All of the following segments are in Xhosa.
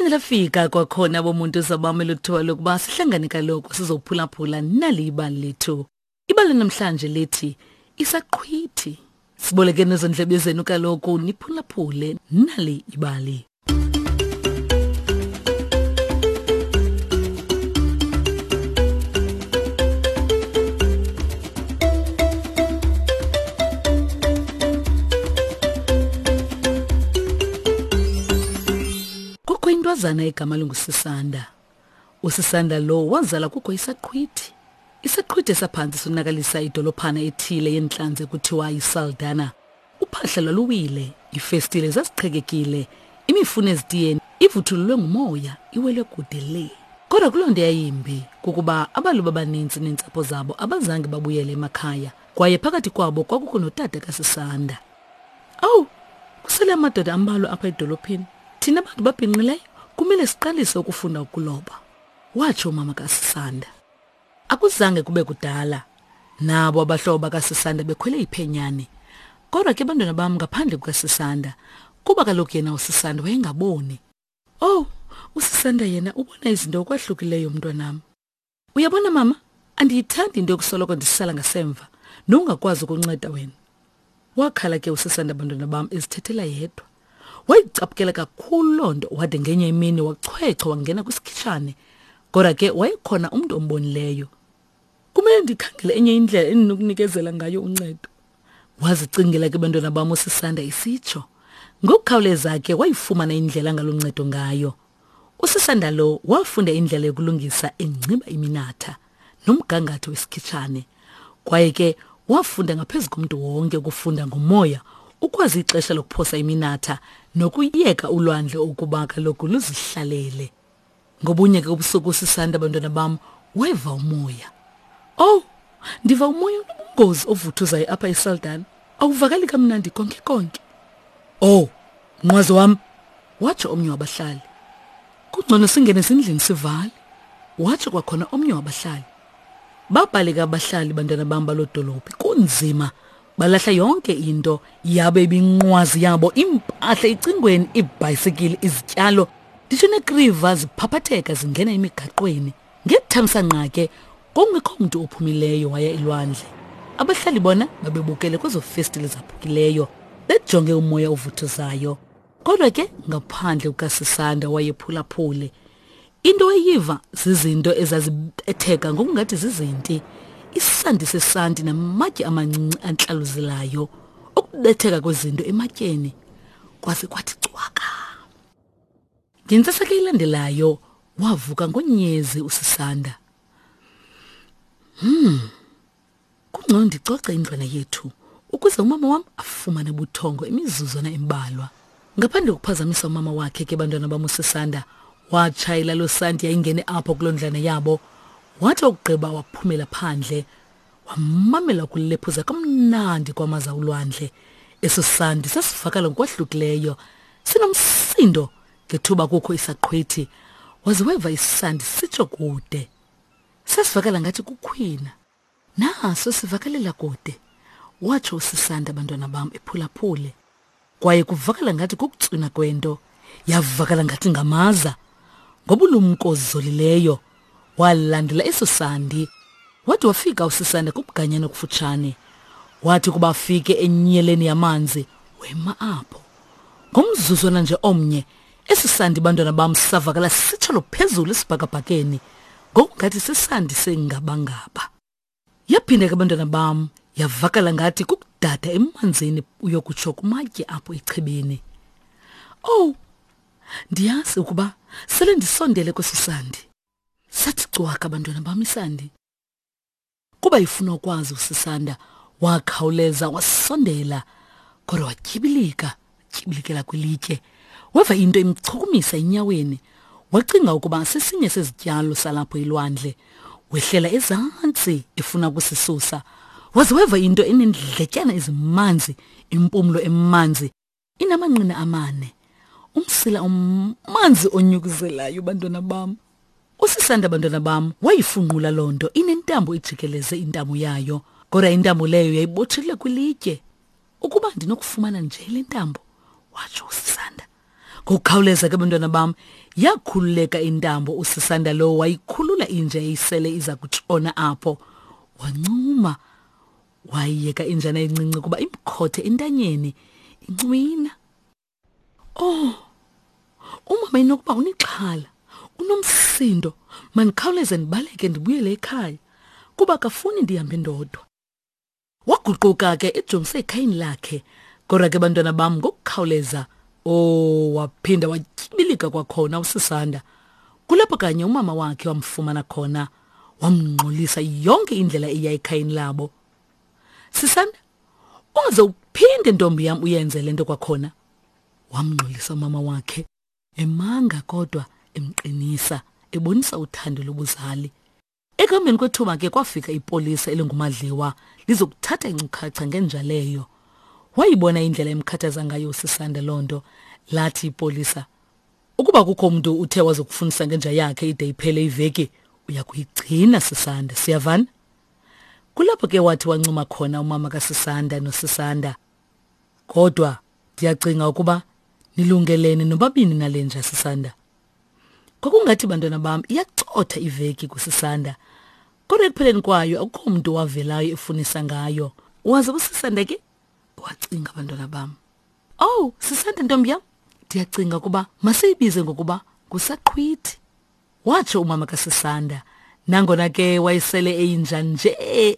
Liphinde lafika kwakhona bomuntu zabami luthiwa lokuba sihlangane kaloku sizophulaphula nali ibali lethu. Ibali namhlanje lithi isaqhwithi. Siboleke nezondlebe zenu kaloku niphulaphule nali ibali. Kukho intwazana egama linguSisanda. USisanda lo wazala kukho isaqhwithi. Isaqhwithi esaphantsi sonakalisa idolophana ethile yentlanzi ekuthiwa yiSaldana. Uphahla lwaluwile, iifestile zaziqhekekile, imifuno ezitiyeni ivuthululwe ngumoya iwele kude le. Kodwa kuloo nto yayimbi kukuba abalubi abaninzi neentsapho zabo abazange babuyele emakhaya, kwaye phakathi kwabo kwakukho notata kaSisanda. Owu, kusele amadoda ambalwa apha edolophini. Thina bantu babhinqileyo kumele siqalise ukufunda ukuloba, watsho umama kaSisanda. Akuzange kube kudala, nabo abahlobo bakaSisanda bekhwele iphenyane. Kodwa ke bantwana bam ngaphandle kukaSisanda, kuba kaloku yena uSisanda wayengaboni. Oh, uSisanda yena ubona izinto okwahlukileyo mntwanam. Uyabona mama, andiyithandi into yokusoloko ndisala ngasemva nongakwazi ukunceda wena. Wakhala ke uSisanda bantwana bam ezithethela yedwa. Wayicaphukela kakhulu loo nto wade ngenye imini wachwechwa wangena kwisikhitshane. Kodwa ke wayekhona umntu ombonileyo. Kumele ndikhangele enye indlela endinokunikezela ngayo uncedo. Wazicingela ke bantwana bam uSisanda isitsho. Ngokukhawuleza ke wayifumana indlela angaluncedo ngayo. USisanda lo wafunda indlela yokulungisa engciba iminatha nomgangatho wesikhitshane. Kwaye ke wafunda ngaphezu komntu wonke ukufunda ngomoya, ukwazi ixesha lokuphosa iminatha nokuyeka ulwandle ukuba kaloku luzihlalele. Ngobunye ke ubusuku uSisanda bantwana bam weva umoya. Oh, ndiva umoya onobungozi ovuthuzayo apha eSaldana. Awuvakali kamnandi konke konke. Oh, nqwazi wam, watsho omnye wabahlali. Kungcono singene ezindlini sivale, watsho kwakhona omnye wabahlali. Babhaleka abahlali bantwana bam baloo dolophi kunzima balahla yonke into yabe ibinqwazi yabo impahla icingweni iibhayisikili izityalo nditsho neekriva ziphaphatheka zingena emigaqweni ngethamsanqa ke kungekho mntu ophumileyo waya elwandle abahlali bona babebukele kwezo festile zaphukileyo bejonge umoya ovuthuzayo kodwa ke ngaphandle kukasisanda wayephulaphule into eyiva zizinto ezazibetheka ngokungathi zizinti isandi sesanti namatye amancinci antlaluzelayo ukubetheka kwezinto ematyeni kwaze kwathi cwaka ngentsasa ke ilandelayo wavuka ngonyezi usisanda hmm Kungcono ndicoce indlwana yethu ukuze umama wam afumane ubuthongo imizuzwana embalwa. Ngaphandle kokuphazamisa umama wakhe ke bantwana bam uSisanda watshayela loo santi yayingene apho kuloo ndlwana yabo. Wathi wakugqiba waphumela phandle wamamela ukulephuza kamnandi kwamaza ulwandle. Eso sandi sasivakala ngokwahlukileyo sinomsindo ngethuba kukho isaqhwithi waze weva isandi sitsho kude. Sasivakala ngathi kukhwina. Naso sivakalela kude, watsho uSisanda bantwana bam ephulaphule. Kwaye kuvakala ngathi kukutswina kwento, yavakala ngathi ngamaza. Ngobulumko zolileyo walandela eso sandi. Wade wafika uSisanda kubuganyana okufutshane. Wathi kuba afike enyeleni yamanzi, wema apho. Ngomzuzwana nje omnye, Esi sandi bantwana bam savakala sisitsholo phezulu esibhakabhakeni ngokungathi sisandi sengabangaba. Yaphinda ke bantwana bam yavakala ngathi kukudada emanzini uyokutsho kumatye apho echibini. Owu, ndiyazi ukuba sele ndisondele kwesi sandi. Sathi cwaka bantwana bam isandi. Kuba ifuna ukwazi uSisanda, wakhawuleza wasondela, kodwa watyibilika, tyibilikela kwilitye. Weva into imchukumisa enyaweni. Wacinga ukuba sesinye sezityalo salapho elwandle. Wehlela ezantsi efuna ukusisusa. Waze weva into enendletyana ezimanzi, impumlo emanzi Inamanqina amane, umsila omanzi onyukuzelayo bantwana bam. Usisanda bantwana bam wayifunqula loo nto inentambo ejikeleze intamo yayo, kodwa intambo leyo yayibotshelwe kwilitye. Ukuba ndinokufumana nje le ntambo, watsho uSisanda. Ngokukhawuleza ke bantwana bam, yakhululeka intambo uSisanda lowo wayikhulula inja eyisele iza kutshona apho. Wancuma wayiyeka injana encinci kuba imkhothe entanyeni incwina. Oh, umama inokuba unexhala, unomsindo, mandikhawuleze ndibaleke ndibuyele ekhaya kuba akafuni ndihambe ndodwa. Waguquka ke ejongise ekhayeni lakhe. Kodwa ke bantwana bam ngokukhawuleza oh waphinda watyibilika kwakhona uSisanda. Kulapho kanye umama wakhe wamfumana khona wamngxolisa yonke indlela eya ekhayeni labo. Sisanda, ungaze uphinde ntombi yam uyenze le nto kwakhona. Wamngxolisa umama wakhe emanga kodwa emqinisa ebonisa uthando lobuzali. Ekuhambeni kwethuba ke kwafika ipolisa elinguMadliwa lizokuthatha inkcukacha ngenja leyo. Wayibona indlela emkhathaza ngayo uSisanda loo nto, lathi ipolisa, ukuba kukho umntu uthe wazokufundisa ngenja yakhe ide iphele iveki, uya kuyigcina Sisanda, siyavana? Kulapho ke wathi wancuma khona umama kaSisanda noSisanda. Kodwa ndiyacinga ukuba nilungelene nobabini nale nja Sisanda. Kwakungathi bantwana bam iyacotha iveki kuSisanda. Kodwa ekupheleni kwayo akukho mntu wavelayo efunisa ngayo. Waze uSisanda ke wacinga bantwana bam. Oh, Sisanda ntombi yam, ndiyacinga ukuba masiyibize ngokuba ngusaqhwithi. Watsho umama kaSisanda. Nangona ke wayesele eyinja nje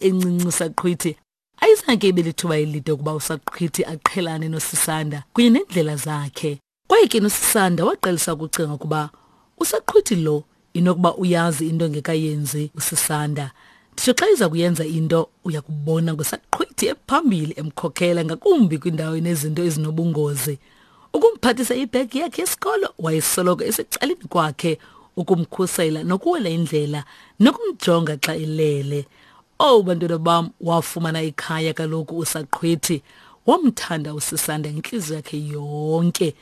encinci usaqhwithi, ayizange ibe lithuba elide ukuba usaqhwithi aqhelane noSisanda kunye neendlela zakhe. Kwaye ke noSisanda waqalisa ukucinga ukuba usaqhwithi lo inokuba uyazi into engekayenzi uSisanda. Nditsho xa iza kuyenza into uya kubona ngosaqhwithi ephambili emkhokhela ngakumbi kwindawo enezinto ezinobungozi. Ukumphathisa ibhegi yakhe yesikolo wayesoloko esecaleni kwakhe ukumkhusela nokuwela indlela nokumjonga xa elele. Owu bantwana bam, wafumana ikhaya kaloku usaqhwithi. Wamthanda uSisanda ngentliziyo yakhe yonke.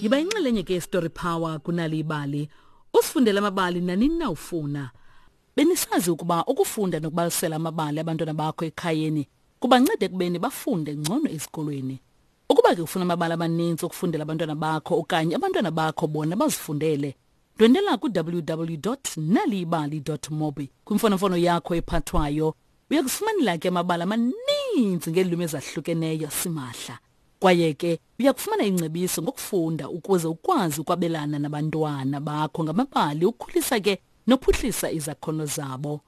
Yiba inxalenye ke Story Power kunali ibali. Usifundele amabali nanini na ufuna. Benisazi ukuba ukufunda nokubalisela amabali abantwana bakho ekhayeni kubanceda ekubeni bafunde ngcono esikolweni. Ukuba ke ufuna amabali amaninzi okufundela abantwana bakho okanye abantwana bakho bona bazifundele, ndwendela ku-www.naliyibali.mobi kwimfonomfono yakho ephathwayo. Uya kufumanela ke amabali amaninzi ngeelwimi ezahlukeneyo simahla. Kwaye ke uya kufumana ingcebiso ngokufunda ukuze ukwazi ukwabelana nabantwana bakho ngamabali ukhulisa ke nophuhlisa izakhono zabo.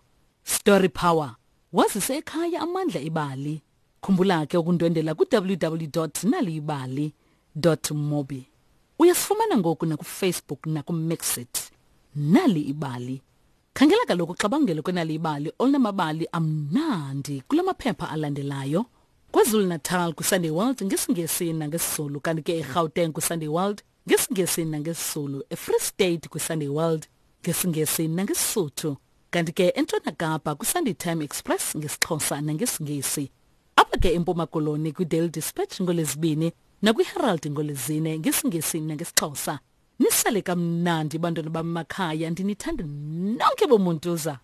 Story Power. Wazise ekhaya amandla ebali. Khumbula ke ukundwendela ku-www.naliyibali.mobi. Uyasifumana ngoku nakuFacebook nakuMixit. Nali ibali. Khangela kaloku uxabangelo kwenali ibali olunamabali amnandi kula maphepha alandelayo. KwaZulu-Natal kwiSunday World ngesiNgesi nangesiZulu kanti ke eGauteng kwiSunday World ngesiNgesi nangesiZulu, eFree State kwiSunday World ngesiNgesi nangeSisuthu, kanti ke eNtshona Kapa kwiSunday Time Express ngesiXhosa nangesiNgesi. Apha ke eMpuma Koloni kwiDaily Dispatch ngoLwezibini nakwiHerald ngoLwezine ngesiNgesi nangesiXhosa. Nisale kamnandi bantwana bamakhaya, ndinithanda nonke bomuntuza.